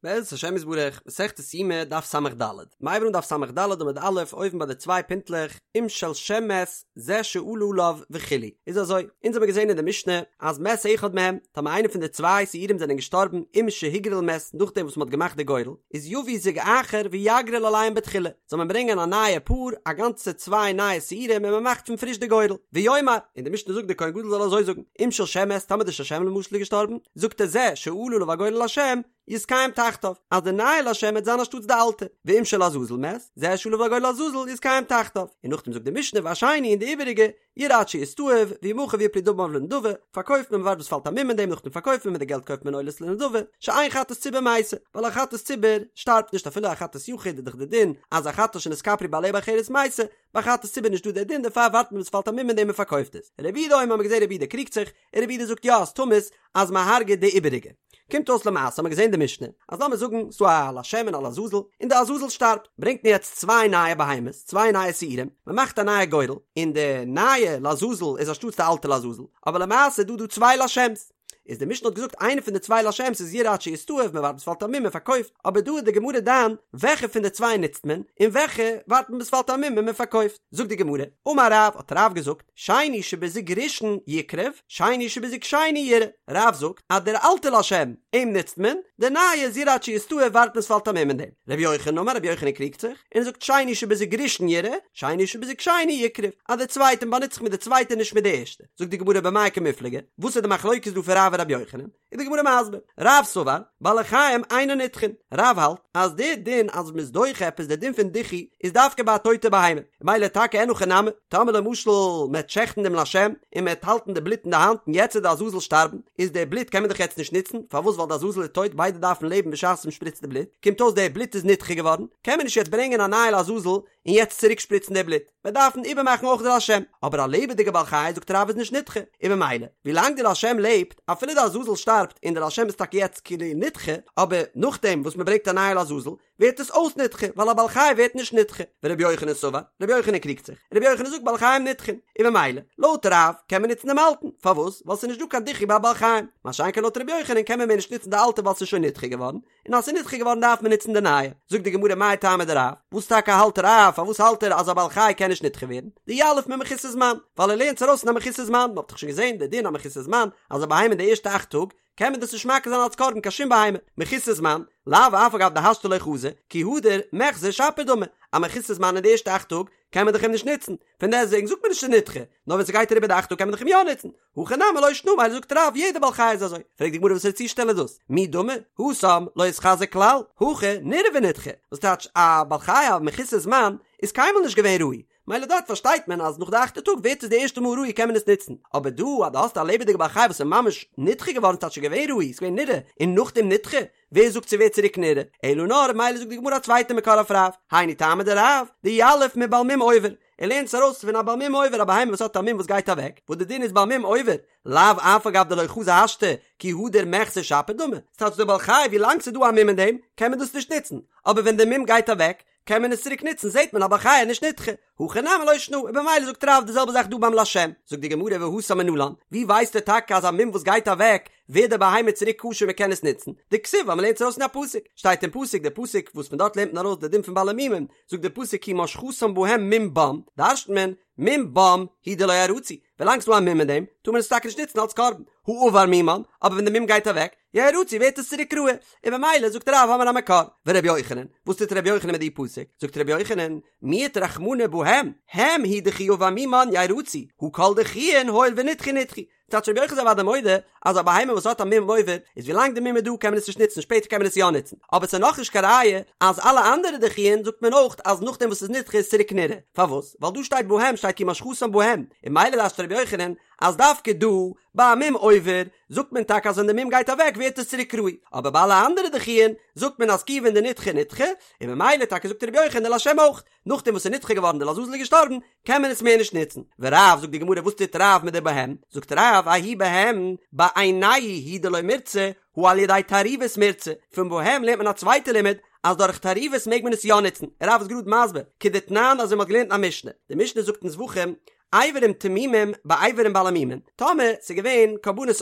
בעזרת השם יתברך, מסכת יומא, דף ס"ד. מ'הייבט אן דף ס"ד עמוד א', אויבן ביי די צוויי פינטלעך, אם של שם מת, זה שעלה עליו וכו'. איז אזוי, אונז האבן געזען אין די משנה, אז מת אחד מהם, טאמער איינער פון די צוויי שעירים זענען געשטארבן, עם שהגריל מת, נאכדעם וואס מ'האט געמאכט די גורל, איז יביא זוג אחר ויגריל עליהם בתחילה, זאל מען ברענגען א נייע פאר, א גאנצע צוויי נייע שעירים און מ'מאכט פון פריש די גורל. ויאמר, און די משנה זאגט די כהן גדול זאל אזוי זאגן, אם של שם מת, טאמער די של שם למשל איז געשטארבן, זאגט ער זה שעלה עליו הגורל לשם, יתקיים תחתיו, אז די נייע לשם וועט זיין אנשטאטס די אלטע, ואם של עזאזל מת, זה שעלה עליו הגורל לעזאזל יתקיים תחתיו, און נאכדעם זאגט די משנה והשני און די איבעריגע, ירעה עד שיסתאב, וימכר ויפלו דמיו לנדבה, פארקויפט מען מ'ווארט ביז ס'פאלט א מום אין דעם נאכדעם פארקויפט מען מיט די געלט קויפט מען עולות לנדבה, שאין חטאת ציבור מתה, ווייל א חטאת ציבור שטארבט נישט אפילו א חטאת יחיד איז דאך די דין אז א חטאת שנתכפרו בעליה באחרת מתה, ביי חטאת ציבור נישט דא די דין דערפאר ווארט מען ביז ס'פאלט א מום אין דעם און פארקויפט עס. רבי יהודה אומר האט מען געזען רבי יהודה קריגט זיך, און רבי יהודה זאגט יא אז תמות אז מ'הרג'עט די איבעריגע. קומט אויס למעשה האט מען געזען די משנה אז לאמיר זאגן ס'דא א לשם און א לעזאזל און די עזאזל שטארבט ברענגט מען יעצט צוויי נייע בהמות צוויי נייע שעירים מען מאכט א נייע גורל און די נייע לעזאזל איז אנשטאטס די אלטע לעזאזל אבער למעשה איז דא דא צוויי לשם'ס איז די משנה האט געזאגט איינע פון די צוויי לשם'ס איז ירעה עד שיסתאב מען ווארט ביז ס'פאלט א מום מען פארקויפט אבער דא איז די גמרא דן וועלכע פון די צוויי נוצט מען און וועלכע ווארט מען ביז ס'פאלט א מום און מען פארקויפט זאגט די גמרא אמר רב האט רב געזאגט שני שבזוג ראשון יקרב, שני שבזוג שני ירעה. רב זאגט אז דער אלטער לשם, אים נוצט מען, דער נייע איז ירעה עד שיסתאב ווארט מען ס'פאלט א מום אין דעם. רבי יוחנן אמר רבי יוחנן קריגט זיך, און ער זאגט שני שבזוג ראשון ירעה, שני שבזוג שני יקרב, אז דער צווייטע מ'באנוצט זיך מיט די צווייטע נישט מיט די ערשטע. זאגט די גמרא במאי קמיפלגי, וואס איז די מחלוקת דא פון רב און רבי יוחנן? איז די גמרא מסביר, רב סבר, בעלי חיים אינן נדחין, רב האלט אז די דין אז מ'איז דוחה עפעס די דין פון דיחוי איז דווקא ביי א טויטע בהמה, ממילא טאקע אין הכי נמי, טאמער למשל מ'עט שעכטן דעם לשם און מ'עט האלטן די בלוט אין די האנט און יעצט וועט די עזאזל שטארבן, איז די בלוט קען מען דאך יעצט נישט נוצן, פארוואס ווייל די עזאזל איז טויט ביידע דארפן לעבן בשעת מ'שפריצט די בלוט, קומט אויס די בלוט איז נדחה געווארן, קען מען נישט יעצט ברענגען א נייע לעזאזל און יעצט צוריק שפריצן די בלוט, מיר דארפן איבערמאכן אויך די לשם, אבער א לעבעדיגע בעל חי זאגט רב איז נישט נדחה, און ממילא ווילאנג די לשם לעבט, אפילו די עזאזל שטארבט און די לשם איז טאקע יעצט כאילו נדחה, אבער נאכדעם וואס מען ברענגט א נייע לעזאזל ווערט עס אויס נדחה, ווייל א בעל חי ווערט נישט נדחה, ורבי יוחנן סבר, רבי יוחנן קריגט זיך, רבי יוחנן זאגט בעלי חיים נדחין, און ממילא לויט רב קען מען נוצן דעם אלטן, פארוואס? ווייל ס'איז נישט דא קיין דיחוי ביי בעלי חיים, מה שאין כן לויט רבי יוחנן קען מען מער נישט נוצן די אלטע ווייל ס'איז שוין נדחה געווארן, און אז ס'איז נדחה געווארן דארף מען נוצן די נייע. זאגט די גמרא מאי טעמא דרב, וואס טאקע האלט רב, פארוואס האלט ער אז א בעל חי קען נישט נדחה ווערן? דיליף ממחוסר זמן, ווייל ער לערנט עס ארויס פון א מחוסר זמן, מ'האט דאך שוין געזען די דין א מחוסר זמן, אז א בהמה אין די ערשטע אכט טאג, קען מען דאס נישט מקריב זיין אלס קרבן קיין שום בהמה, מחוסר זמן, לאו אף על גב דהשתא לא חזי, כי הדר מיחזא שפיר דמי, א מחוסר זמן אין די ערשטע אכט טאג, קען מען דאך אים נישט נוצן, פון דעסטוועגן זאגט מען נישט ס'איז נדחה, נאר ווען ס'גייט אריבער די אכט טאג קען מען דאך אים יא נוצן, הכא נמי לא שנא מילא זאגט רב יעדע בעל חי איז אזוי, פרעגט די גמרא וואסערע צושטעל איז דאס, מי דמי, התם לא איתחזי כלל, הכא נראה ונדחה, וואס טייטש א בעל חי א מחוסר זמן איז קיינמאל נישט געווען ראוי, מילא דארט פארשטייט מען אז נאך די אכטע טאג ווערט עס די ערשטע מאל ראוי קען מען עס נוצן, אבער דא אז דו האסט א לעבעדיגע בעל חי וואס איז ממש נדחה געווארן ס'טייטש שוין געווען ראוי, ס'איז געווען נראה, און נאכדעם נדחה, ווער זאגט ס'ווערט צוריק נראה? אלא נאר מילא זאגט די גמרא א צווייטע מקור אויף רב, היינו טעמא דרב, דיליף מבעל מום עובר, ער לערנט עס ארויס פון א בעל מום עובר א בהמה וואס האט א מום וואס גייט אוועק, וואס די דין איז בעל מום עובר, לאו אף על גב דלא חזי השתא, כי הדר מיחזא שפיר דמי, ס'טייטש די בעל חי ווי לאנג ס'איז דא א מום אין דעם קען מען דאס נישט נוצן, אבער ווען די מום גייט אוועק קען מען עס צוריק נוצן זעט מען א בעל חי איז נישט נדחה, הכא נמי לא שנא, און במילא זאגט רב די זעלבע זאך דא ביים לשם, זאגט די גמרא והתם מנלן, ווי ווייסטו טאקע אז א מום וואס גייט אוועק ווערט די בהמה צוריק כשר מען קען עס נוצן, דכתיב ווייל מען לערנט עס ארויס אין א פסוק, שטייט אין פסוק די פסוק וואס פון דארט לערנט מען ארויס די דין פון בעלי מומים, זאגט די פסוק כי משחתם בהם מום בם, דרש'נט מען, מום בם הוא דלא ירצו, ווילאנג ס'דא א מום אין דעם, טאר מען עס טאקע נישט נוצן אלס קרבן, הא עבר מומן, אבער ווען די מום גייט אוועק, ירצו ווערט עס צוריק ראוי, און במילא זאגט רב האמיר א מקור, ורבי יוחנן, וואס טוט רבי יוחנן מיט די פסוק, זאגט רבי יוחנן, מיעט רחמנא בהם, הם הוא דכי עבר מומן ירצו, הא כל דחויין הואיל ונדחו נדחו, טייטש רבי יוחנן איז אוודאי מודה אז א בהמה וואס האט א מום עובר איז ווילאנג די מום איז דא קען מען עס נישט נוצן שפעטער קען מען עס יא נוצן אבער ס'איז נאכנישט קיין ראיה אז אלע אנדערע דחויין זאגט מען אויך אז נאכדעם וואס ס'איז נדחה איז צוריק נראה פארוואס ווייל דא שטייט בהם שטייט כי משחתם בהם און מילא דרש'נט רבי יוחנן אז דווקא דא ביי א מום עובר זאגט מען טאקע אז ווען די מום גייט אוועק ווערט עס צוריק ראוי אבער ביי אלע אנדערע דחויין זאגט מען אז כיוון דנדחה נדחה און ממילא טאקע זאגט רבי יוחנן לשם אויך נאכדעם וואס ס'איז נדחה געווארן די לעזאזל איז געשטארבן, קען מען עס מער נישט נוצן. ורב, זאגט די גמרא, וואס טוט רב מיט די בהם? זאגט רב, ההוא בהם, בעינייהו הוא דלא מירצי, הא על ידי תערובות מירצי. פון בהם לערנט מען א צווייטע לימוד, אז דורך תערובות מעג מען עס יא נוצן. רב איז גראד מסביר, כדתנן אזוי מ'האט געלערנט אין א משנה. די משנה זאגט אין זבחים, אברים תמימים באברים בעלי מומין, טאמער ס'איז געווען קרבנות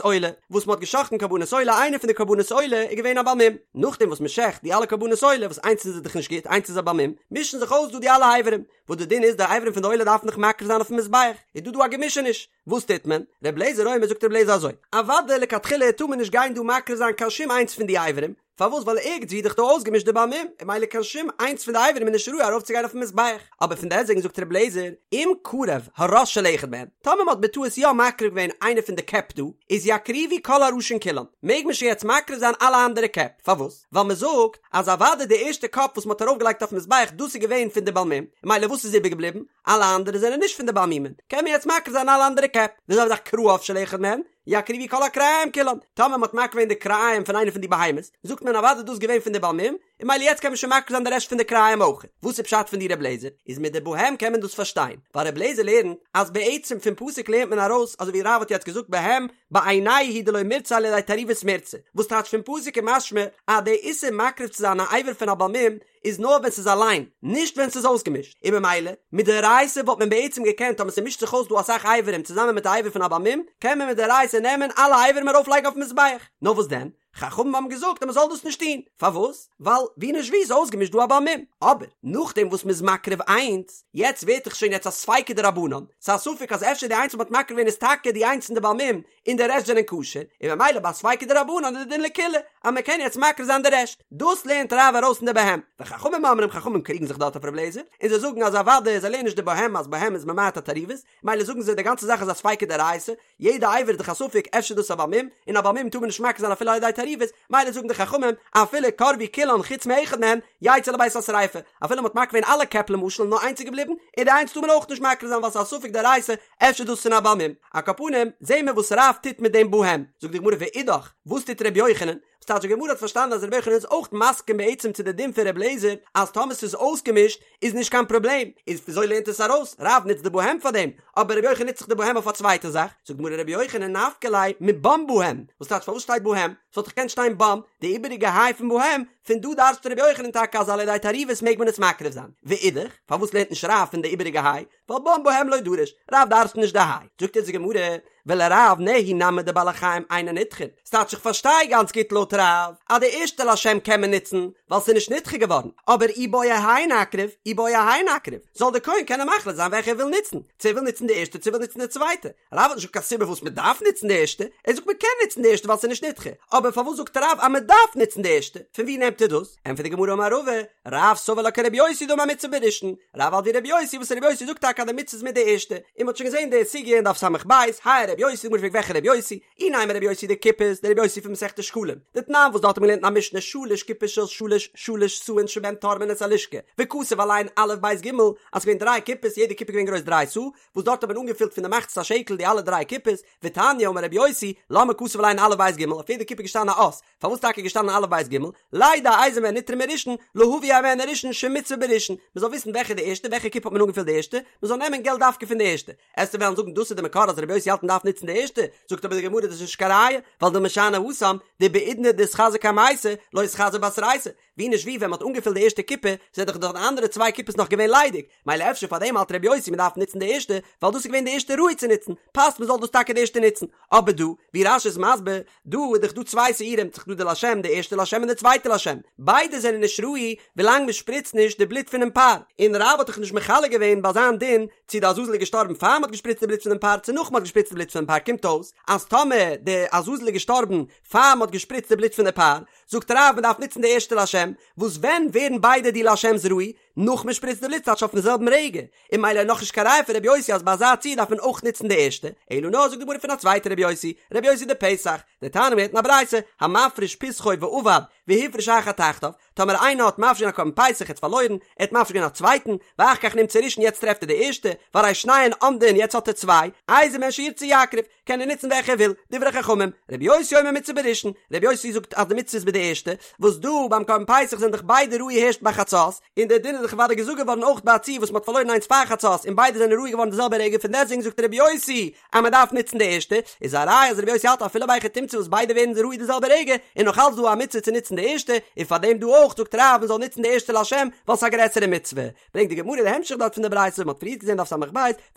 עולה, וואס מ'האט גע'שחט'ן קרבנות עולה, איינער פון די קרבנות עולה איז געווען א בעל מום, נאכדעם וואס מ'שחט די אלע קרבנות עולה, וואס איינס איז דאך נישט גוט, איינס איז א בעל מום, מישן זיך אויס דא די אלע אברים, וואס די דין איז די אברים פון די עולה דארף מען דאך מקריב זיין אויפן מזבח, איז דא דא א געמישעניש, וואס טוט מען? ר' לעזער אומר זאגט ר' לעזער אזוי, אוודאי לכתחילה טאר מען נישט גיין דא מקריב זיין קיין שום איינס פון די אברים, פארוואס ווייל ערגעץ ווי איז דאך דא אויסגעמישט די בעל מום, און ממילא קיין שום איינס פון די אברים איז נישט ראוי ארויפצוגיין אויפן מזבח, אבער פון דעסטוועגן זאגט ר' לעזער, אם קרב הראש של אחד מהם, טאמער מען האט בטעות יא מקריב געווען איינע פון די קעפ דא, איז יקריבו כל הראשין כולן, מעג מען שוין יעצט מקריב זיין אלע אנדערע קעפ, פארוואס? ווייל מען זאגט אז אוודאי די ערשטע קאפ וואס מען האט ארויפגעלייגט אויפן מזבח דאס איז געווען פון די בעל מום, און ממילא וואס איז איבערגעבליבן? אלע אנדערע זענען נישט פון די בעל מומין, קען מען יעצט מקריב זיין אלע אנדערע קעפ, די זעלבע זאך כרעיו של אחד מהם, יקריבו כל הכרעיים כולן, טאמער מען האט מקריב געווען די כרעיים פון איינע פון די בהמות, זאגט מען אוודאי דאס איז געווען פון די בעל מום, און ממילא יעצט קען מען שוין מקריב זיין די רעשט פון די כרעיים אויך. וואס איז פשט פון די ר' לעזער? איז מיט די בהם קען מען דאס פארשטיין, ווייל ר' לעזער לערנט אז בעצם פון פסוק לערנט מען ארויס אזוי ווי רב האט יעצט געזאגט בהם בעינייהו הוא דלא מירצו על ידי תערובות מירצו, וואס טייטש פון פסוק איז משמע אז די איסור מקריב צו זיין א אבר פון א בעל מום איז נאר ווען ס'איז אליין, נישט ווען ס'איז אויסגעמישט, און ממילא, מדאורייתא וואלט מען בעצם געקענט טאמער ס'מישט זיך אויס דא אסאך אברים צוזאמען מיט א אבר פון א בעל מום, קען מען מדאורייתא נעמען אלע אברים ארויף לייגן אויפן מזבח, נאר וואס דען? חכמים האבן געזאגט אז מ'זאל דאס נישט טון, פארוואס? ווייל ווי נישט ווי איז אויסגעמישט דא א בעל מום, אבער נאכדעם וואס מ'איז מקריב איינס, יעצט ווערט דאך שוין יעצט א ספיקא דרבנן, ס'איז א ספק אז אפשר די איינס וואס מ'האט מקריב געווען איז טאקע די איינס פון די בעל מום, און די רעשט זענען כשר, און ממילא ביי ספיקא דרבנן איז די דין לקולא אז מען קען יעצט מקריב זיין די רעשט, דאס לערנט רב ארויס אין די בהם, וחכמים אומרים חכמים קריגן זיך דארט אויף רב לעזער, און זיי זאגן אז אוודאי זיי לערנען נישט די בהם אז בהם איז ממעט א תערובות, ממילא זאגן זיי די גאנצע זאך איז א ספיקא דאורייתא, יעדע אבר איז דאך א ספק אפשר דאס א בעל מום, און א בעל מום טאר מען נישט מקריב זיין אפילו על ידי תערובות, ממילא זאגן די חכמים אפילו קרבו כולן חוץ מאחד מהם, יצא לבית השריפה, אפילו מען האט מקריב געווען אלע קעפ למשל און נאר איינס איז געבליבן, און די איינס טאר מען אויך נישט מקריב זיין ווייל ס'איז א ספק דאורייתא, אפשר דאס פון א בעל מום. על כל פנים, זעהן מיר וואס רב טוט מיט דעם בהם. זאגט די גמרא ואידך, וואס טוט ר' יוחנן? וואס טייטש די גמרא האט פארשטאנען אז ר' יוחנן איז אויך מסכים בעצם צו די דין פון ר' לעזער אז טאמער ס'איז אויסגעמישט איז נישט קיין פראבלעם, איז וויאזוי לערנט עס ארויס? רב נוצט די בהם פאר דעם, אבער ר' יוחנן נוצט זיך די בהם אויף א צווייטע זאך. זאגט די גמרא ר' יוחנן נפקא ליה מבם בהם, וואס טייטש פארוואס שטייט בהם? ס'וואלט דאך געקענט שטיין בם, די איבעריגע היי פון בהם, פון דא דרש'ט ר' יוחנן טאקע אז על ידי תערובות מעג מען עס מקריב זיין. ואידך, פארוואס לערנט נישט רב פון די איבעריגע היי? ווייל בם בהם לא דריש, רב דרש'נט נישט די היי. זאגט אונז די גמרא, ולרב נהי נמי דבעלי חיים אינן נדחין, ס'טייטש איך פארשטיי גאנץ גוט לויט רב אז די ערשטע לשם קען מען נוצן ווייל ס'איז נישט נדחה געווארן, אבער אי בעי האי נקריב אי בעי האי נקריב, זאל דער כהן קענען מחליט זיין וועלכע ער וויל נוצן, צו ער וויל נוצן די ערשטע צו ער וויל נוצן די צווייטע. רב האט נישט געזאגט קיין סיבה פארוואס מען דארף נוצן די ערשטע, ער זאגט מען קען נוצן די ערשטע ווייל ס'איז נישט נדחה, אבער פארוואס זאגט רב אז מען דארף נוצן די ערשטע? פון ווי נעמט ער דאס? ענטפערט די גמרא אמר רבא, רב סבר לה כרבי יוסי דאמר מצוה בראשון, רב האלט ווי רבי יוסי וואס רבי יוסי זאגט טאקע אז די מצוה איז מיט די ערשטע, און מ'האט שוין געזען די סוגיא אין דף ס"ב, האי רבי יוסי, די גמרא פרעגט וועלכע רבי יוסי, אי נימא רבי יוסי דקופות, די רבי יוסי פון מסכת שקלים, דתנן וואס דארט האט מען געלערנט אין א משנה שלש קופות של שלש שלש סאין שבהן תורמין את הלשכה, וכתוב עליהן א' ב' ג', אז ס'געווען דריי קופות יעדע קופה געווען גרויס דריי סאה, וואס דארט האט מען אנגעפילט פון די מחצית השקל די אלע דריי קופות, ותניא אמר רבי יוסי, למה כתוב עליהן א' ב' ג', אויף יעדע קופה איז געשטאנען א אות, פארוואס טאקע איז געשטאנען א' ב' ג', לידע איזה מהן נתרמה ראשון, להביא הימנו ראשון שמצוה בראשון, מען זאל וויסן וועלכע די ערשטע, וועלכע קופה האט מען אנגעפילט די ערשטע, מען זאל נעמען געלט דווקא פון די ערשטע. עסטו וועלן זאגן דאס איז די מקור אז רבי יוסי האלט מען דארף נוצן די ערשטע, זאגט אבער די גמרא דאס איז נישט קיין ראיה, ווייל דילמא שאני התם, דבעידנא דאתחזי קמייתא, לא אתחזי בתרייתא, ווי נישט ווי ווען מ'האט אנגעפילט די ערשטע קופה זענען דאך די אנדערע צוויי קופות נאך געווען ליידיג, מילא אפשר פאר דעם האלט רבי יוסי מ'דארף נוצן די ערשטע, ווייל דאס איז געווען די ערשטע ראוי צו נוצן, פאסט מ'זאל דאס טאקע די ערשטע נוצן. אבער דא, ווי רש"י איז מסביר, דא איז דאך דא צוויי שעירים, ס'איז דא די לשם, די ערשטע לשם און די צווייטע לשם, ביידע זענען נישט ראוי ווילאנג מ'שפריצט נישט די בלוט פונעם פר, און רב האט דאך נישט מחלק געווען ביי זיין דין צו די עזאזל איז געשטארבן פאר מ'האט געשפריצט די בלוט פונעם פר צו נאך מ'האט געשפריצט די בלוט פונעם פר, קומט אויס אז טאמער די עזאזל איז געשטארבן פאר מ'האט געשפריצט די בלוט פון די פר, זאגט רב מען דארף נוצן די ערשטע לשם, וואס ווען ווערן ביידע די לשם'ס ראוי? נאך מען שפריצט די בלוט ס'טייטש אויפן זעלבן רגע, און מילא איז נאכנישט קיין ראיה פון רבי יוסי אז ביי אזא ציור דארף מען אויך נוצן די ערשטע, אלא נאר זאגט די גמרא פון א צווייטע רבי יוסי, רבי יוסי דפסח, דתניא מ'לערנט אין א ברייתא, המפריש פסחו ואבד, והפריש אחר תחתיו, טאמער איינער האט מפריש געווען א קרבן פסח ער האט פארלוירן, ער האט מפריש געווען א צווייטן, ואחר כך נמצא ראשון יעצט טרעפט ער די ערשטע, והרי שניהן עומדין יעצט האט ער צוויי, איזה מהן שירצה יקריב, קען ער נוצן וועלכע ער וויל, דברי חכמים, רבי יוסי אומר מצוה בראשון, רבי יוסי זאגט אז די מצוה איז ביי די ערשטע, וואס דא ביים קרבן פסח זענען דאך ביידע ראוי הערשט ביי חצות, און דער דין איז דאך. איז דאך אוודאי געזאגט געווארן אויך ביי א ציור וואס מ'האט פארלוירן איינס פאר חצות און ביידע זענען ראוי געווארן די זעלבע רגע פון דעסטוועגן זאגט רבי יוסי אז מ'דארף נוצן די ערשטע, איז א ראיה אז רבי יוסי האלט אפילו בהיכי תמצא וואס ביידע ווערן ראוי די זעלבע רגע איז נאך אלץ דא א מצוה צו נוצן די ערשטע, און פארדעם דא אויך זאגט רב מ'זאל נוצן די ערשטע לשם ווייל ס'איז א גרעסערע מצוה. ברענגט די גמרא די המשך דארט פון די ברייתא וואס מ'האט פריערט געזען דף ס"ב,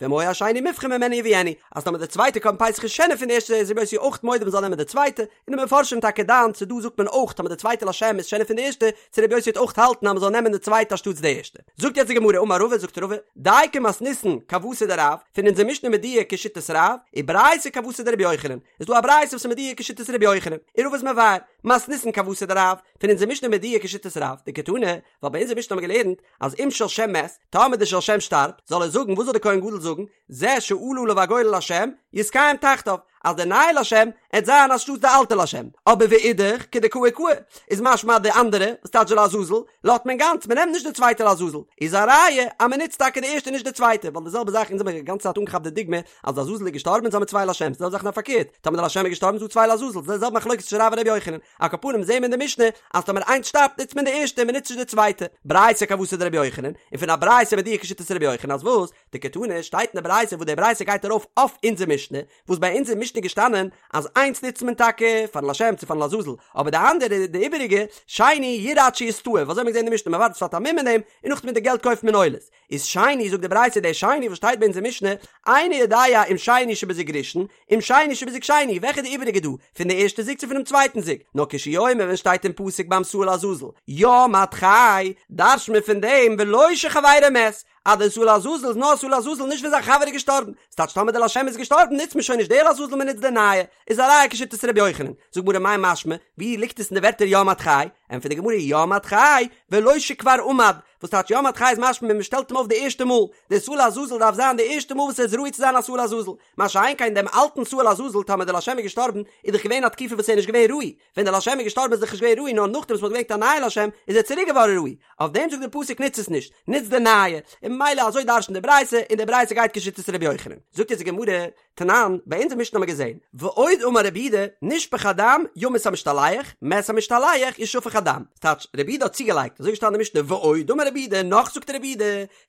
ואם היה השני מובחר ממנו יביאנו, אז טאמער די צווייטע קרבן פסח איז שענער פון די ערשטע איז רבי יוסי אויך מודה מ'זאל נעמען די צווייטע, און די מפרשים טאקע דן צו דא זאגט מען אויך טאמער די צווייטע לשם איז שענער פון די ערשטע, צו רבי יוסי וועט אויך האלטן אז מ'זאל נעמען די צווייטע אנשטאטס די ערשטע. זאגט יעצט די גמרא אמר רבא זאגט רבא, דייקא מתניתין כוותיה דרב, פון אונזער משנה מדויק כשיטת רב, וברייתא כוותיה דרבי יוחנן, איז דא א ברייתא וואס איז מדויק כשיטת רבי יוחנן, און רבא איז מבאר, מתניתין כוותיה דרב, פון אונזער משנה מדויק כשיטת רב, דקתני, ווייל ביי אונזער משנה האבן מיר געלערנט אז אם של שם מת, טאמער די של שם שטארבט, זאל ער זאגן, וואס זאל די כהן גדול זאגן, זה שעלה עליו הגורל לשם, יתקיים תחתיו, אז די נייע לשם עט זיין אנשטאטס די אלטע לשם, אבער ואידך, כדקאי קאי, איז משמע אז די אנדערע, וואס טייטש לעזאזל, לאזט מען גאנץ, מען נעמט נישט די צווייטע לעזאזל, איז א ראיה אז מען נוצט טאקע די ערשטע נישט די צווייטע, ווייל די זעלבע זאך אונז האבן די גאנצע צייט אנגעכאפט די דוגמא אז די עזאזל איז געשטארבן אונז האבן צוויי לשם'ס, די זעלבע זאך נאר פארקערט, טאמער די לשם איז געשטארבן איז דא צוויי לעזאזל, די זעלבע מחלוקת צווישן רב און רבי יוחנן, על כל פנים זעהן מיר אין די משנה אז טאמער איינס שטארבט נוצט מען די ערשטע און מען נוצט נישט די צווייטע, ברייתא כוותיה דרבי יוחנן, און פון א ברייתא מדויק כשיטת רבי יוחנן אז וואס? דקתני שטייט אין די ברייתא וואס די ברייתא גייט ארויף אויף אונזער משנה, וואס ביי אונזער משנה איז געשטאנען אז איינס נוצט מען טאקע פארן לשם צו פארן לעזאזל, אבער די אנדערע די איבעריגע, שני ירעה עד שיסתאב, אזוי האט מען געזעהן אין די משנה מען ווארט עס פאלט א מום אין דעם, און נאכדעם מיט די געלט קויפט מען עולות. איז שני זאגט די ברייתא דער שני וואס שטייט ביי אונזער משנה, איני יודע אם שני שבזוג ראשון, אם שני שבזוג שני, וועלכע איז די איבעריגע דא, פון די ערשטע זוג צו פונעם צווייטן זוג? נאר כשהוא אומר ווען שטייט אין פסוק ביים שעיר לעזאזל, ים עד חי, דרש'ט מען פון דעם ולא שחבירו מת, אז דער שעיר לעזאזל איז נאר שעיר לעזאזל נישט ווען זיין חבר איז געשטארבן, ס'טייטש טאמער דער לשם איז געשטארבן נוצט מען שוין נישט דער לעזאזל מען נוצט דער נייע, איז א ראיה כשיטת ר' יוחנן, זאגט גמרא מאי משמע, ווי ליגט עס אין די ווערטער ים עד חי? ענטפערט די גמרא ים עד חי, ולא שכבר עמד, וואס טייטש ים עד חי איז משמע ווען מען שטעלט אים אויף די ערשטע מאל, דער שעיר לעזאזל דארף זיין די ערשטע מאל וואס ער איז ראוי צו זיין א שעיר לעזאזל, מה שאין כן דעם אלטן שעיר לעזאזל טאמער דער לשם איז געשטארבן איז דאך געווען א תקופה וואס ער איז נישט געווען ראוי, ווען דער לשם איז געשטארבן איז דאך נישט געווען ראוי נאר נאכדעם וואס מען האט געברענגט א נייע לשם איז ער צוריק געווארן ראוי, אויף דעם זאגט דער פסוק נוץ עס נישט, נוץ די נייע, און ממילא אזוי דרש'נט די ברייתא, און די ברייתא גייט כשיטת ר' יוחנן. זאגט אונז די גמרא, תנן, ביי אונזער משנה האבן מיר געזען, ועוד אמר רבי יהודה, נשפך הדם, ימות המשתלח, מת המשתלח, ישפך הדם. ס'טייטש, רבי יהודה האט צוגעלייגט, אזוי געשטאנען אין משנה, ועוד אמר רבי יהודה, נאך זאגט רבי יהודה,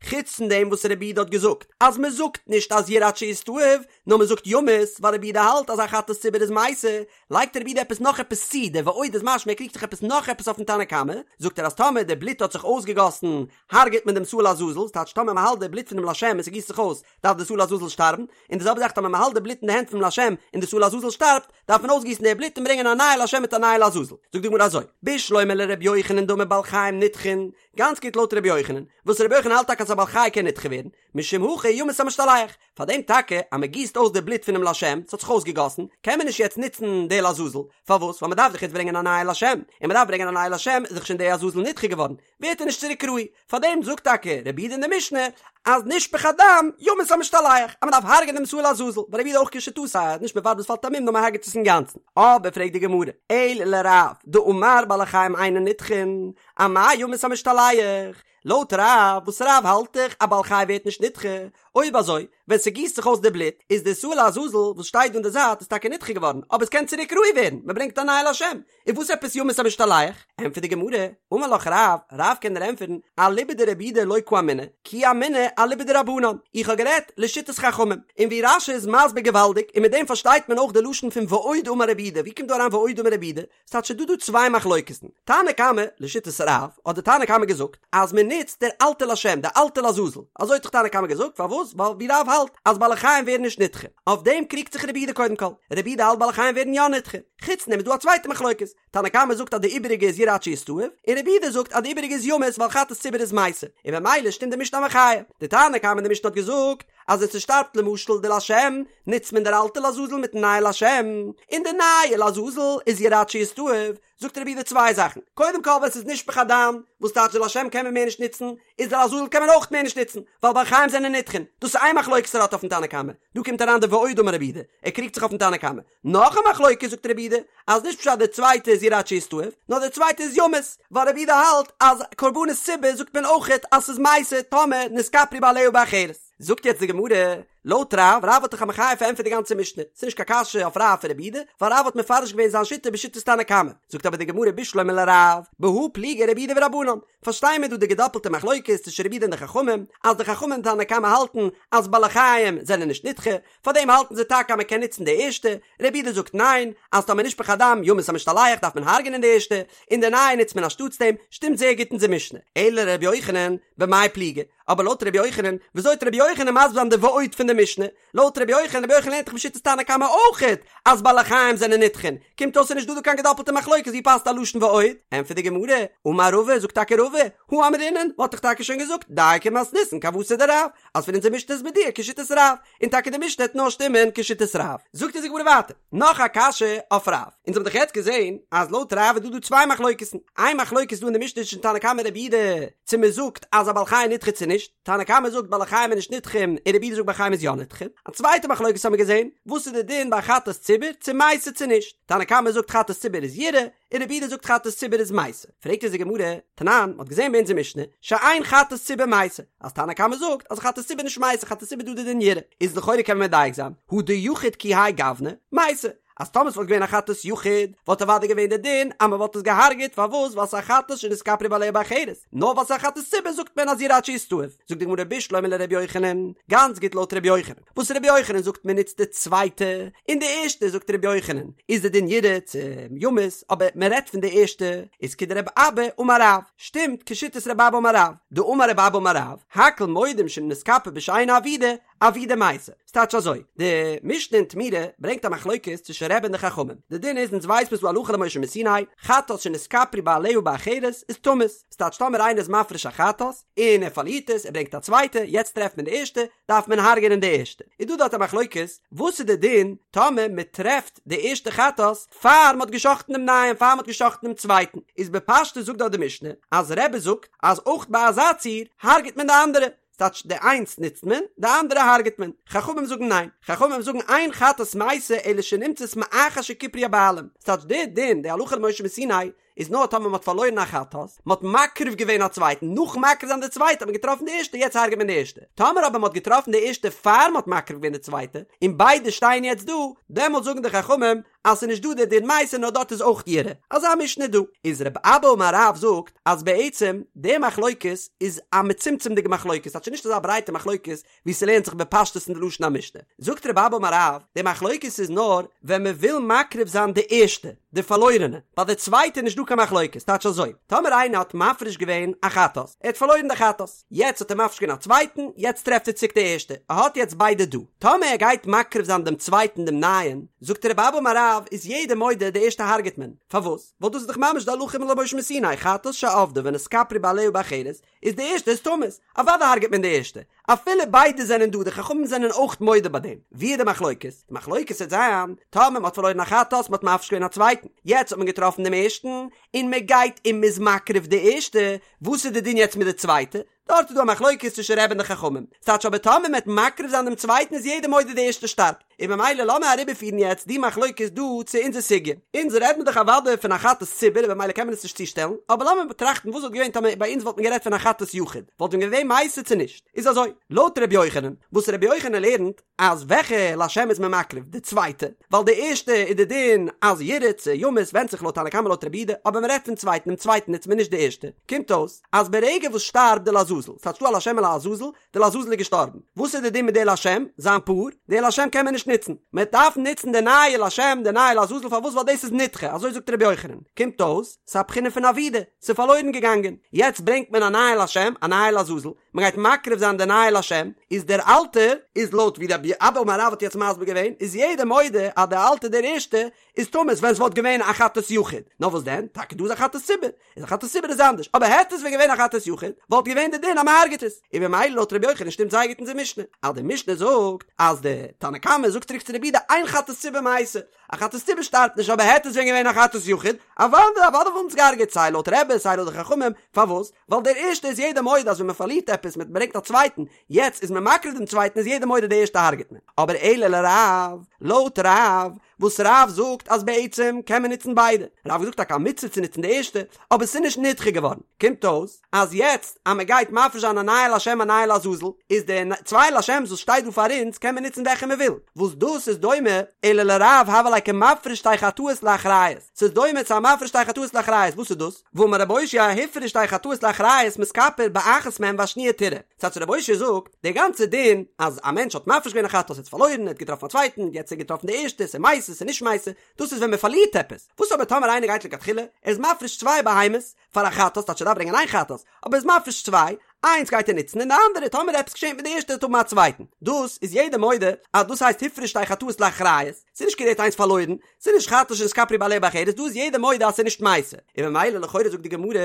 חוץ פון דעם וואס רבי יהודה האט געזאגט, אז מען זאגט נישט אז ירעה עד שיסתאב, נאר מען זאגט ימות, ווייל רבי יהודה האלט אז א חטאת ציבור איז מתה, לייגט רבי יהודה עפעס נאך עפעס צו, דער ועוד איז משמע ער קריגט זיך עפעס נאך עפעס אויפן תנא קמא, זאגט ער אז טאמער די בלוט האט זיך אויסגעגאסן, הרג'עט מען דעם שעיר לעזאזל, ס'טייטש טאמער מען האלט די בלוט פונעם לשם און ס'גיסט זיך אויס, דארף די שעיר לעזאזל שטארבן, און די זעלבע זאך טאמער מען האלט די בלוט אין די הענט פונעם לשם און די שעיר לעזאזל שטארבט, דארף מען אויסגיסן די בלוט און ברענגען א נייע לשם מיט א נייע לעזאזל. זאגט די גמרא אזוי, בשלמא לר' יוחנן דאמר בעלי חיים נדחין, גאנץ גוט לויט ר' יוחנן, וואס ר' יוחנן האלט טאקע אז א בעל חי קען נדחה ווערן, משום הכי ימות המשתלח, פאר דעם טאקע אז מען גיסט אויס די בלוט פונעם לשם, ס'האט זיך אויסגעגאסן, קען מען נישט יעצט נוצן די לעזאזל, פארוואס? ווייל מען דארף דאך יעצט ברענגען א נייע לשם, און מען דארף ברענגען א נייע לשם איז דאך שוין די עזאזל נדחה געווארן, ווערט ער נישט צוריק ראוי, פאר דעם זאגט טאקע רבי יהודה אין די משנה אז נשפך הדם ימות המשתלח, אז מען דארף הרג'ענען דעם שעיר לעזאזל, ווייל רבי יהודה אויך כשיטתו אז נישט מען ווארט ביז ס'פאלט א מום נאר מען הרג'עט עס אינגאנצן, אבער פרעגט די גמרא, אלא לרב דאמר בעלי חיים אינן נדחין, אמאי ימות המשתלח, לויט רב, וואס רב האלט דאך א בעל חי ווערט נישט נדחה, אויב אזוי, ווען ס'גיסט זיך אויס די בלוט, איז די שעיר לעזאזל וואס שטייט דא אין די זייט איז טאקע נדחה געווארן, אבער עס קען צוריק ראוי ווערן, מען ברענגט א נייע לשם, און וואס עפעס ימות המשתלח? ענטפערט די גמרא, אמר לך רב, רב קען דיר ענטפערן, אליבא דרבי יהודה לא קאמינא, כי אמינא אליבא דרבנן, איך האב גערעדט לשיטת חכמים, און ווי רש"י איז מסביר געוואלדיג, און מיט דעם פארשטייט מען אויך די לשון פון ועוד אמר רבי יהודה, ווי קומט דא אריין ועוד אמר רבי יהודה? ס'טייטש ס'דא דא צוויי מחלוקת'ן, תנא קמא, לשיטת רב, האט די תנא קמא געזאגט אז מען נוצט דער אלטע לשם, די אלטע לעזאזל, אזוי האט דאך תנא קמא געזאגט, פארוואס? ווייל ווי רב האלט אז בעלי חיים ווערן נישט נדחה, אויף דעם קריגט זיך רבי יהודה קודם כל, רבי יהודה האלט בעלי חיים ווערן יא נדחה, חוץ דעם איז דא א צווייטע מחלוקת, תנא קמא זאגט אז די איבעריגע איז ירעה עד שיסתאב, און רבי יהודה זאגט אז די איבעריגע איז ימות ווייל חטאת ציבור איז מתה, און ממילא שטימט די משנה א מחיה, די תנא קמא אין די משנה האט געזאגט אז ווען ס'שטארבט למשל די לשם, נוצט מען דער אלטע לעזאזל מיטן נייע לשם, און די נייע לעזאזל איז ירעה עד שיסתאב, זאגט רבי יהודה צוויי זאכן, קודם כל ווען ס'איז נשפך הדם, וואס טייטש די לשם קען מען מער נישט נוצן, איז די לעזאזל קען מען אויך מער נישט נוצן, ווייל בעלי חיים זענען נדחין, דאס איז איין מחלוקת ער האט אויפן תנא קמא, דא קומט אריין די ועוד אמר רבי יהודה, ער קריגט זיך אויפן תנא קמא, נאך א מחלוקת זאגט רבי יהודה, אז נישט פשט די צווייטע איז ירעה עד שיסתאב, נאר די צווייטע איז ימות, ווייל רבי יהודה האלט אז קרבנות ציבור זאגט מען אויכעט אז ס'איז מתה טאמער נתכפרו בעליה באחרת. זאגט יעצט די גמרא, לויט רב, רב האט דאך א מחיה פארענטפערט די גאנצע משנה, ס'איז נישט קיין קשיא אויף רב פון רבי יהודה, ווייל רב האט מפרש געווען זיין שיטה בשיטת תנא קמא. זאגט אבער די גמרא בשלמא לרב, בהא פליגי רבי יהודה ורבנן, פארשטיי מיר דא די געדאפלטע מחלוקת צווישן רבי יהודה און די חכמים, אז די חכמים און תנא קמא האלטן אז בעלי חיים זענען נישט נדחה, פארדעם האלטן זיי טאקע אז מען קען נוצן די ערשטע, רבי יהודה זאגט ניין, אז טאמער נשפך הדם ימות המשתלח דארף מען הרג'נען די ערשטע, און די נייע נוצט מען אנשטאטס דעם, שטימט זייער גוט אונזער משנה. אלא לרבי יוחנן, במאי פליגי? אבער לויט רבי יוחנן, וויאזוי וועט רבי יוחנן מסביר זיין די ועוד פון די משנה? לויט רבי יוחנן, רבי יוחנן לערנט דאך בשיטת תנא קמא אויכעט אז בעלי חיים זענען נדחין, קומט אויס ס'איז נישט דא דא קיין געדאפלטע מחלוקת, ווי פאסט א לשון ועוד? ענטפערט די גמרא, אמר רבא, זאגט טאקע רבא, הא אמרינן, מ'האט דאך טאקע שוין געזאגט, דייקא מתניתין כוותיה דרב, אז פון אונזער משנה איז מדויק כשיטת רב, און טאקע די משנה העט נאר שטימען כשיטת רב. זאגט אונז די גמרא ווייטער, נאך א קשיא אויף רב. אונז האבן דאך יעצט געזען אז לויט רב איז דא דא צוויי מחלוקת'ן. איין מחלוקת איז דא אין די משנה צווישן תנא קמא און רבי יהודה צו מען זאגט אז א בעל חי נדחה צו נישט. תנא קמא זאגט בעלי חיים איז נישט נדחים און רבי יהודה זאגט בעלי חיים איז יא נדחים. א צווייטע מחלוקת האבן מיר געזען, וואס איז די דין ביי חטאת ציבור צו מתה צו נישט. תנא קמא זאגט חטאת ציבור איז ירעה, און רבי יהודה זאגט חטאת ציבור איז מתה. פרעגט אונז די גמרא, תנן, מ'האט געזען ביי אונזער משנה, שאין חטאת ציבור מתה, אז תנא קמא זאגט אז חטאת ציבור נישט מתה, חטאת ציבור דא די דין ירעה, איז לכאורה קען מען מדייק זיין, הא דיחיד כי האי גוונא, מתה, אז טאמער ס'וואלט געווען א חטאת יחיד, וואלט אוודאי געווען די דין אז מ'וואלט עס געהארגעט, פארוואס? ווייל ס'איז א חטאת שנתכפרו בעליה באחרת, נאר ווייל ס'איז א חטאת ציבור זאגט מען אז ירעה עד שיסתאב. זאגט די גמרא בשלמא לר' יוחנן, גאנץ גוט לויט ר' יוחנן, וואס ר' יוחנן זאגט מען נוצט די צווייטע, און די ערשטע זאגט ר' יוחנן איז די דין ירעה צו ימות, אבער מען רעדט פון די ערשטע, איז כדרבי אבא אמר רב, שטימט כשיטת רבי אבא אמר רב, דאמר רבי אבא אמר רב, הכל מודים שאם נתכפר בשאינה אבודה, אבודה מתה. ס'טייטש אזוי, די משנה אין תמורה ברענגט א מחלוקת צווישן רבי און די חכמים, די דין איז אונז ווייס מיר ס'דא הלכה למשה מסיני, חטאת שנתכפרו בעליה באחרת איז תמות, ס'טייטש טאמער איינער איז מפריש א חטאת, און ער פארלירט עס, ער ברענגט א צווייטע, יעצט טרעפט מען די ערשטע, דארף מען הרג'ענען די ערשטע. איז דא דארט א מחלוקת, וואס איז די דין טאמער מען טרעפט די ערשטע חטאת פאר מען האט גע'שחט'ן דעם נייעם, פאר מען האט גע'שחט'ן דעם צווייטן, איז בפשטות זאגט דארט די משנה, אז רבי זאגט אז אויך ביי אזא ציור הרג'עט מען די אנדערע, ס'טייטש די איינס נוצט מען, די אנדערע הרג'עט מען. חכמים זאגן ניין. חכמים זאגן אין חטאת מתה אלא שנמצאת מאחר שכיפרו הבעלים. ס'טייטש די דין, די הלכה למשה מסיני, איז נאר טאמער מ'האט פארלוירן א חטאת, מ'האט מקריב געווען א צווייטן, נאכן מקריב זיין די צווייטע האט מען געטראפן די ערשטע, יעצט הרג'עט מען די ערשטע. טאמער אבער מ'האט געטראפן די ערשטע פאר מ'האט מקריב געווען די צווייטע, און ביידע שטייען יעצט דא, דעמאלט זאגן די חכמים אז ס'איז נישט דא די דין מתה נאר דארט איז אויך ירעה. אזא משנה דא. איז רב אבא אמר רב זאגט אז בעצם די מחלוקת איז א מצומצם'דיגע מחלוקת, ס'טייטש נישט אזא ברייטע מחלוקת ווי ס'לערנט זיך בפשטות אין די לשון המשנה. זאגט רב אבא אמר רב, די מחלוקת איז נאר ווען מ'וויל מקריב זיין די ערשטע, די פארלוירענע, ביי די צווייטע איז נישט דא קיין מחלוקת, טייטש אזוי, טאמער איינער האט מפריש געווען א חטאת, ער האט פארלוירן די חטאת, יעצט האט ער מפריש געווען א צווייטן, יעצט טרעפט ער צוריק די ערשטע, ער האט יעצט ביידע דא, טאמער ער גייט מקריב זיין דעם צווייטן דעם נייעם, זאגט רב אבא אמר רב, איז יעדער מודה די ערשטע הרג'ט מען, פארוואס? ווייל דאס איז דאך ממש די הלכה למשה מסיני, חטאת שאבדה ונתכפרו בעליה באחרת, איז די ערשטע איז תמות, אוודאי הרג'ט מען די ערשטע, אפילו ביידע זענען דא, די חכמים זענען אויך מודה ביי דעם, ווי איז די מחלוקת? די מחלוקת וועט זיין, טאמער מען האט פארלוירן א חטאת, מען האט מפריש געווען א צווייטן, יעצט האט מען געטראפן דעם ערשטן, און מען גייט און מען איז מקריב די ערשטע, וואס איז די דין יעצט מיט די צווייטע? דארט איז דא א מחלוקת צווישן רבי און די חכמים, ס'טייטש אבער טאמער מען וועט מקריב זיין דעם צווייטן איז יעדער מודה די ערשטע שטארבט, און ממילא לאמיר אריבערפירן יעצט די מחלוקת דא צו אונזער סוגיא. אונז רעדט מען דאך אוודאי פון א חטאת ציבור און במילא קען מען עס נישט צושטעלן, אבער לאמיר באטראכטן וואס וואלט געווען טאמער ביי אונז וואלט מען גערעדט פון א חטאת יחיד, וואלט ווען געווען מתה צו נישט? איז אזוי, לויט ר' יוחנן, וואס ר' יוחנן לערנט אז וועלכע לשם איז מען מקריב? די צווייטע, ווייל די ערשטע איז די דין אז ירעה צו ימות ווענדט זיך לויט תנא קמא לויט רבי יהודה, אבער מען רעדט פון צווייטן, דעם צווייטן נוצט מען נישט די ערשטע, קומט אויס אז ברגע וואס שטארבט די לעזאזל, ס'טייטש דא א לשם און לעזאזל, די לעזאזל איז געשטארבן, וואס איז די דין מיט די לשם, זיין פאר? די לשם קען מען נישט נוצן, מען דארף נוצן די נייע לשם, די נייע לעזאזל, פארוואס? ווייל דאס איז נדחה, אזוי זאגט רבי יוחנן, קומט אויס, ס'איז א בחינה פון אבידה, ס'איז פארלוירן געגאנגען, יעצט ברענגט מען א נייע לשם, א נייע לעזאזל, מען גייט מקריב זיין די נייע לשם, איז דער אלטער, איז לויט ווי רב אבא אמר רב האט יעצט מסביר געווען, איז יעדער מודה אז דער אלטער דער ערשטער, איז תמות ווען ס'וואלט געווען א חטאת יחיד, נאר וואס דען, טאקע דא איז א חטאת ציבור, איז א חטאת ציבור איז אנדערש, אבער העט עס ווען געווען א חטאת יחיד, וואלט געווען די דין אז מ'הרג'עט עס, און במילא לויט רבי יוחנן שטימט זייער גוט אונזער משנה, אז די משנה זאגט אז די תנא קמא זאגט צוריק צו רבי יהודה אין חטאת ציבור מתה, א חטאת ציבור שטארבט נישט אבער העט עס ווען געווען א חטאת יחיד, אוודאי אוודאי וואלט מען עס געהרג'עט סיי לויט רבי סיי לויט די חכמים, פארוואס? ווייל דער ערשטע איז יעדער מודה אז ווען מ'פארלירט עפעס מען ברענגט א צווייטן, יעצט איז מען מקריב דעם צווייטן איז יעדער מודה די ערשטע הרג'עט מען, אבער אלא לרב, לויט רב. וואס רב זאגט אז בעצם קען מען נוצן ביידע, רב האט געזאגט טאקע א מצוה צו נוצן די ערשטע, אבער ס'איז נישט נדחה געווארן, קומט אויס אז יעצט אז מען גייט מפריש זיין א נייע לשם א נייע לעזאזל, איז די צוויי לשם'ס וואס שטייט דא פאר אונז קען מען נוצן וועלכע מען וויל, וואס דאס איז דומה אלא לרב הוה ליה כמפריש שתי חטאות לאחריות, ס'איז דומה צו א מפריש שתי חטאות לאחריות, וואס איז דאס? והאמר רב אושעיא הפריש שתי חטאות לאחריות מתכפר באחת מהן והשניה תרעה, ס'טייטש רב אושעיא זאגט, די גאנצע דין אז א מענטש האט מפריש געווען א חטאת האט פארלוירן ער האט געטראפן א צווייטן, יעצט האט ער געטראפן די ערשטע, ס'איז מתה ס'איז נישט מתה, דאס איז ווען מען פארלירט עפעס, וואס אבער טאמער איינער גייט לכתחילה, ער איז מפריש צוויי בהמות פאר א חטאת, טייטש ער דארף ברענגען איין חטאת, אבער ער איז מפריש צוויי, איינס גייט ער נוצן און די אנדערע טאמער עפעס געשענט מיט די ערשטע וועט האבן א צווייטן, דאס איז יעדער מודה אז דאס הייסט הפריש שתי חטאות לאחריות, ס'איז נישט כאילו ער האט איינס פארלוירן, ס'איז נישט חטאת שנתכפרו בעליה באחרת, דא איז יעדער מודה אז ס'איז נישט מתה, און ממילא לכאורה זאגט די גמרא,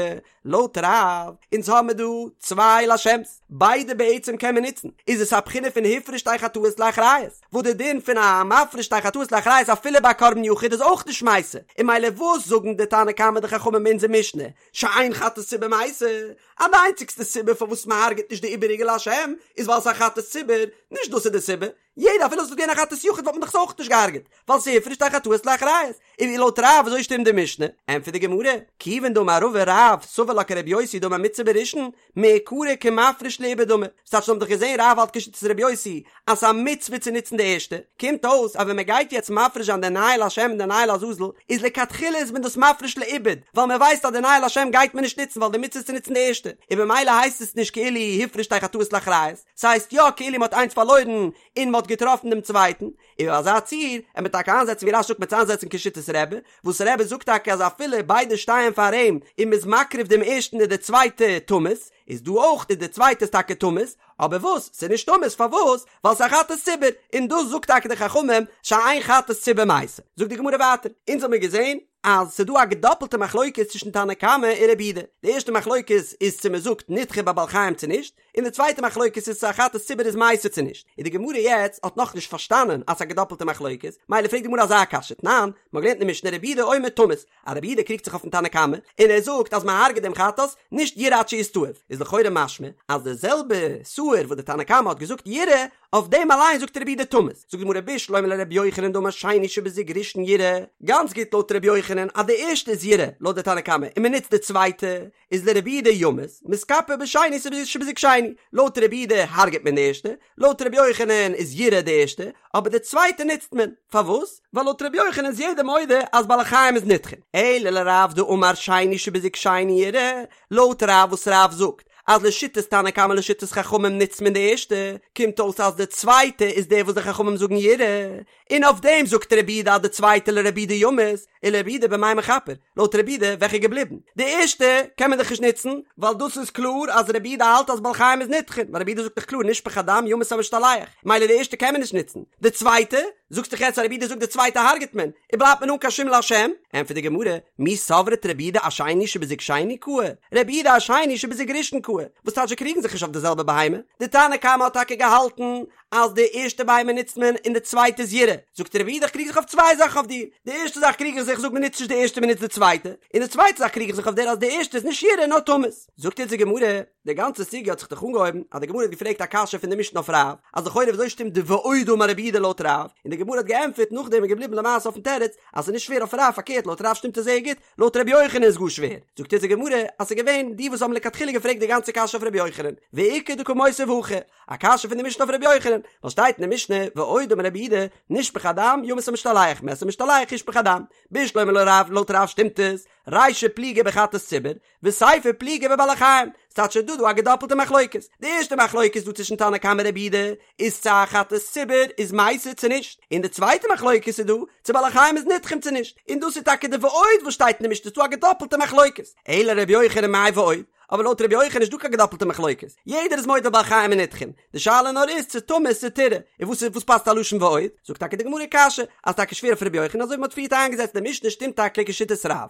לויט רב, אונז האמיר דא צוויי לשם'ס, ביידע בעצם קען מען נוצן, איז עס א בחינה פון הפריש שתי חטאות לאחריות, וואס די דין פון א מפריש שתי חטאות לאחריות אפילו ביי קרבן יחיד איז אויך נישט מתה, און ממילא וואס זאגן די תנא קמא די חכמים אין אונזער משנה, שאין חטאת ציבור מתה, אז די איינציגסטע סיבה פארוואס מען הרג'עט נישט די איבעריגע לשם איז ווייל ס'איז א חטאת ציבור, נישט דאס איז די סיבה, יעדער אפילו עס וואלט געווען א חטאת יחיד וואלט מען דאך עס אויך נישט געהארגעט, ווייל ס'איז הפריש שתי חטאות לאחריות, און ווי לויט רב וויאזוי שטימט די משנה? ענטפערט די גמרא, כיוון דאמר רבא רב סבר לה כרבי יוסי דאמר מצוה בראשון, מעיקרא כמפריש לאיבוד דמי, ס'טייטש מ'האט דאך געזען רב האלט כשיטת רבי יוסי אז ס'איז א מצוה צו נוצן די ערשטע, קומט אויס אז ווען מ'גייט יעצט מפריש זיין די נייע לשם און די נייע לעזאזל איז לכתחילה איז מען דאס מפריש לאיבוד, ווייל מ'ווייסט אז די נייע לשם גייט מען נישט נוצן ווייל די מצוה איז צו נוצן די ערשטע, און במילא הייסט עס נישט כאילו הפריש שתי חטאות לאחריות. ס'הייסט יא כאילו מ'האט איינס פארלוירן און מ'האט געטראפן דעם צווייטן, און אזא ציור, ער מ'עט טאקע איינזעצן ווי רש"י זאגט מ'עט איינזעצן כשיטת רבי, וואס רבי זאגט טאקע אז אפילו ביידע שטייען פאר אים און מ'איז מקריב דעם ערשטן איז די צווייטע תמות, איז דא אויך איז די צווייטע איז טאקע תמות, אבער וואס? ס'איז נישט תמות פארוואס? ווייל ס'איז א חטאת ציבור, און דאס זאגט טאקע די חכמים שאין חטאת ציבור מתה. זאגט די גמרא ווייטער, אונז האמיר געזען אז ס'איז דא א געדאפלטע מחלוקת צווישן תנא קמא און רבי יהודה, די ערשטע מחלוקת איז צו מ'זאגט נדחה ביי בעלי חיים צו נישט, און די צווייטע מחלוקת איז צו א חטאת ציבור איז מתה צו נישט, און די גמרא יעצט האט נאכנישט פארשטאנען אז ס'איז א געדאפלטע מחלוקת, מילא פרעגט די גמרא אזא קשיא, תנן, מ'האט געלערנט אין משנה רבי יהודה אומר תמות, אז רבי יהודה קריגט זיך אויפן תנא קמא, און ער זאגט אז מ'הרג'ט דעם חטאת, נישט ירעה עד שיסתאב, איז לכאורה משמע אז די זעלבע שעיר וואס די תנא קמא האט געזאגט ירעה, אויף דעם אליין זאגט רבי יהודה תמות, זאגט די גמרא בשלמא לרבי יוחנן דאמר שני שבזוג ראשון ירעה, גאנץ גוט לויט רבי יוחנן אז די ערשטע איז ירעה לויט די תנא קמא און מ'נוצט די צווייטע, איז לרבי יהודה ימות, מתכפר בשני שבזוג שני, לויט רבי יהודה הרג'ט מען די ערשטע, לויט רבי יוחנן איז ירעה די ערשטע, אבער די צווייטע נוצט מען, פארוואס? ווייל לויט רבי יוחנן איז יעדער מודה אז בעלי חיים איז נדחין, אלא לרב דאמר שני שבזוג שני ירעה, לויט רב וואס רב זאגט אז לשיטת תנא קמא לשיטת חכמים נוצט מען די ערשטע, קומט אויס אז די צווייטע איז די וואס די חכמים זאגן ירעה, און אויף דעם זאגט רבי יהודה אז די צווייטע לרבי יהודה ימות, ולרבי יהודה במאי מכפר, לויט רבי יהודה וועלכע איז געבליבן? די ערשטע קען מען דאך נישט נוצן, ווייל דאס איז קלאר אז רבי יהודה האלט אז בעלי חיים איז נדחין, ווייל רבי יהודה זאגט דאך קלאר נשפך הדם ימות המשתלח, מילא די ערשטע קען מען נישט נוצן, די צווייטע, זאגסט דאך יעצט אז רבי יהודה זאגט די צווייטע הרג'ט מען, און בלייבט מען אן קיין שום לשם? ענטפערט די גמרא, מי סברת רבי יהודה אשני שבזוג שני קאי, רבי יהודה אשני שבזוג ראשון קאי, וואס טייטש זיי קריגן זיך נישט אויף די זעלבע בהמה, די תנא קמא האט טאקע געהאלטן אז די ערשטע בהמה נוצט מען און די צווייטע איז ירעה, זאגט רבי יהודה איך קריג זיך אויף צוויי זאכן אויף דיר, די ערשטע זאך קריג איך זיך זאג מען נוצט נישט די ערשטע מען נוצט די צווייטע, און די צווייטע זאך קריג איך זיך אויף דיר אז די ערשטע איז נישט ירעה נאר תמות. זאגט אונז די גמרא, די גאנצע סוגיא האט זיך דאך אנגעהויבן אז די גמרא האט געפרעגט א קשיא פון די משנה אויף רב, אז לכאורה וויאזוי שטימט די ועוד אמר רבי יהודה לויט רב, און די גמרא האט געענטפערט נאכדעם איז געבליבן למעשה אויפן תירוץ אז ס'איז נישט שווער אויף רב פארקערט לויט רב שטימט עס זייער גוט, לויט רבי יוחנן איז גאר שווער, זאגט אונז די גמרא אז ס'איז געווען די וואס האבן לכתחילה געפרעגט די גאנצע קשיא אויף רבי יוחנן, ואיכא דקא מותיב הכי, א קשיא פון די משנה אויף רבי יוחנן, ווייל שטייט אין די משנה ועוד אמר רבי יהודה נשפך הדם ימות המשתלח מת המשתלח ישפך הדם, בשלמא לרב לויט רב שטימט עס, רישא פליגי בחטאת ציבור, וסיפא פליגי בבעלי חיים, ס'טייטש ס'איז דא דא א געדאפלטע מחלוקת, די ערשטע מחלוקת דא צווישן תנא קמא רבי יהודה איז צו א חטאת ציבור איז מתה צו נישט, און די צווייטע מחלוקת איז דא צו בעלי חיים איז נדחים צו נישט, און דאס איז טאקע די ועוד וואס שטייט אין די משנה ס'איז דא א געדאפלטע מחלוקת, אלא רבי יוחנן מאי ועוד, אבער לויט רבי יוחנן איז נישט דא קיין געדאפלטע מחלוקת, יעדער איז מודה בעלי חיים איז נדחים, די שאלה נאר איז צו תמות צו תרעה, און וואס איז וואס פאסט א לשון ועוד, זאגט טאקע די גמרא קשיא, אז טאקע שווער אויף רבי יוחנן אזוי ווי מ'האט פריערט איינגעזעצט די משנה שטימט טאקע כשיטת רב.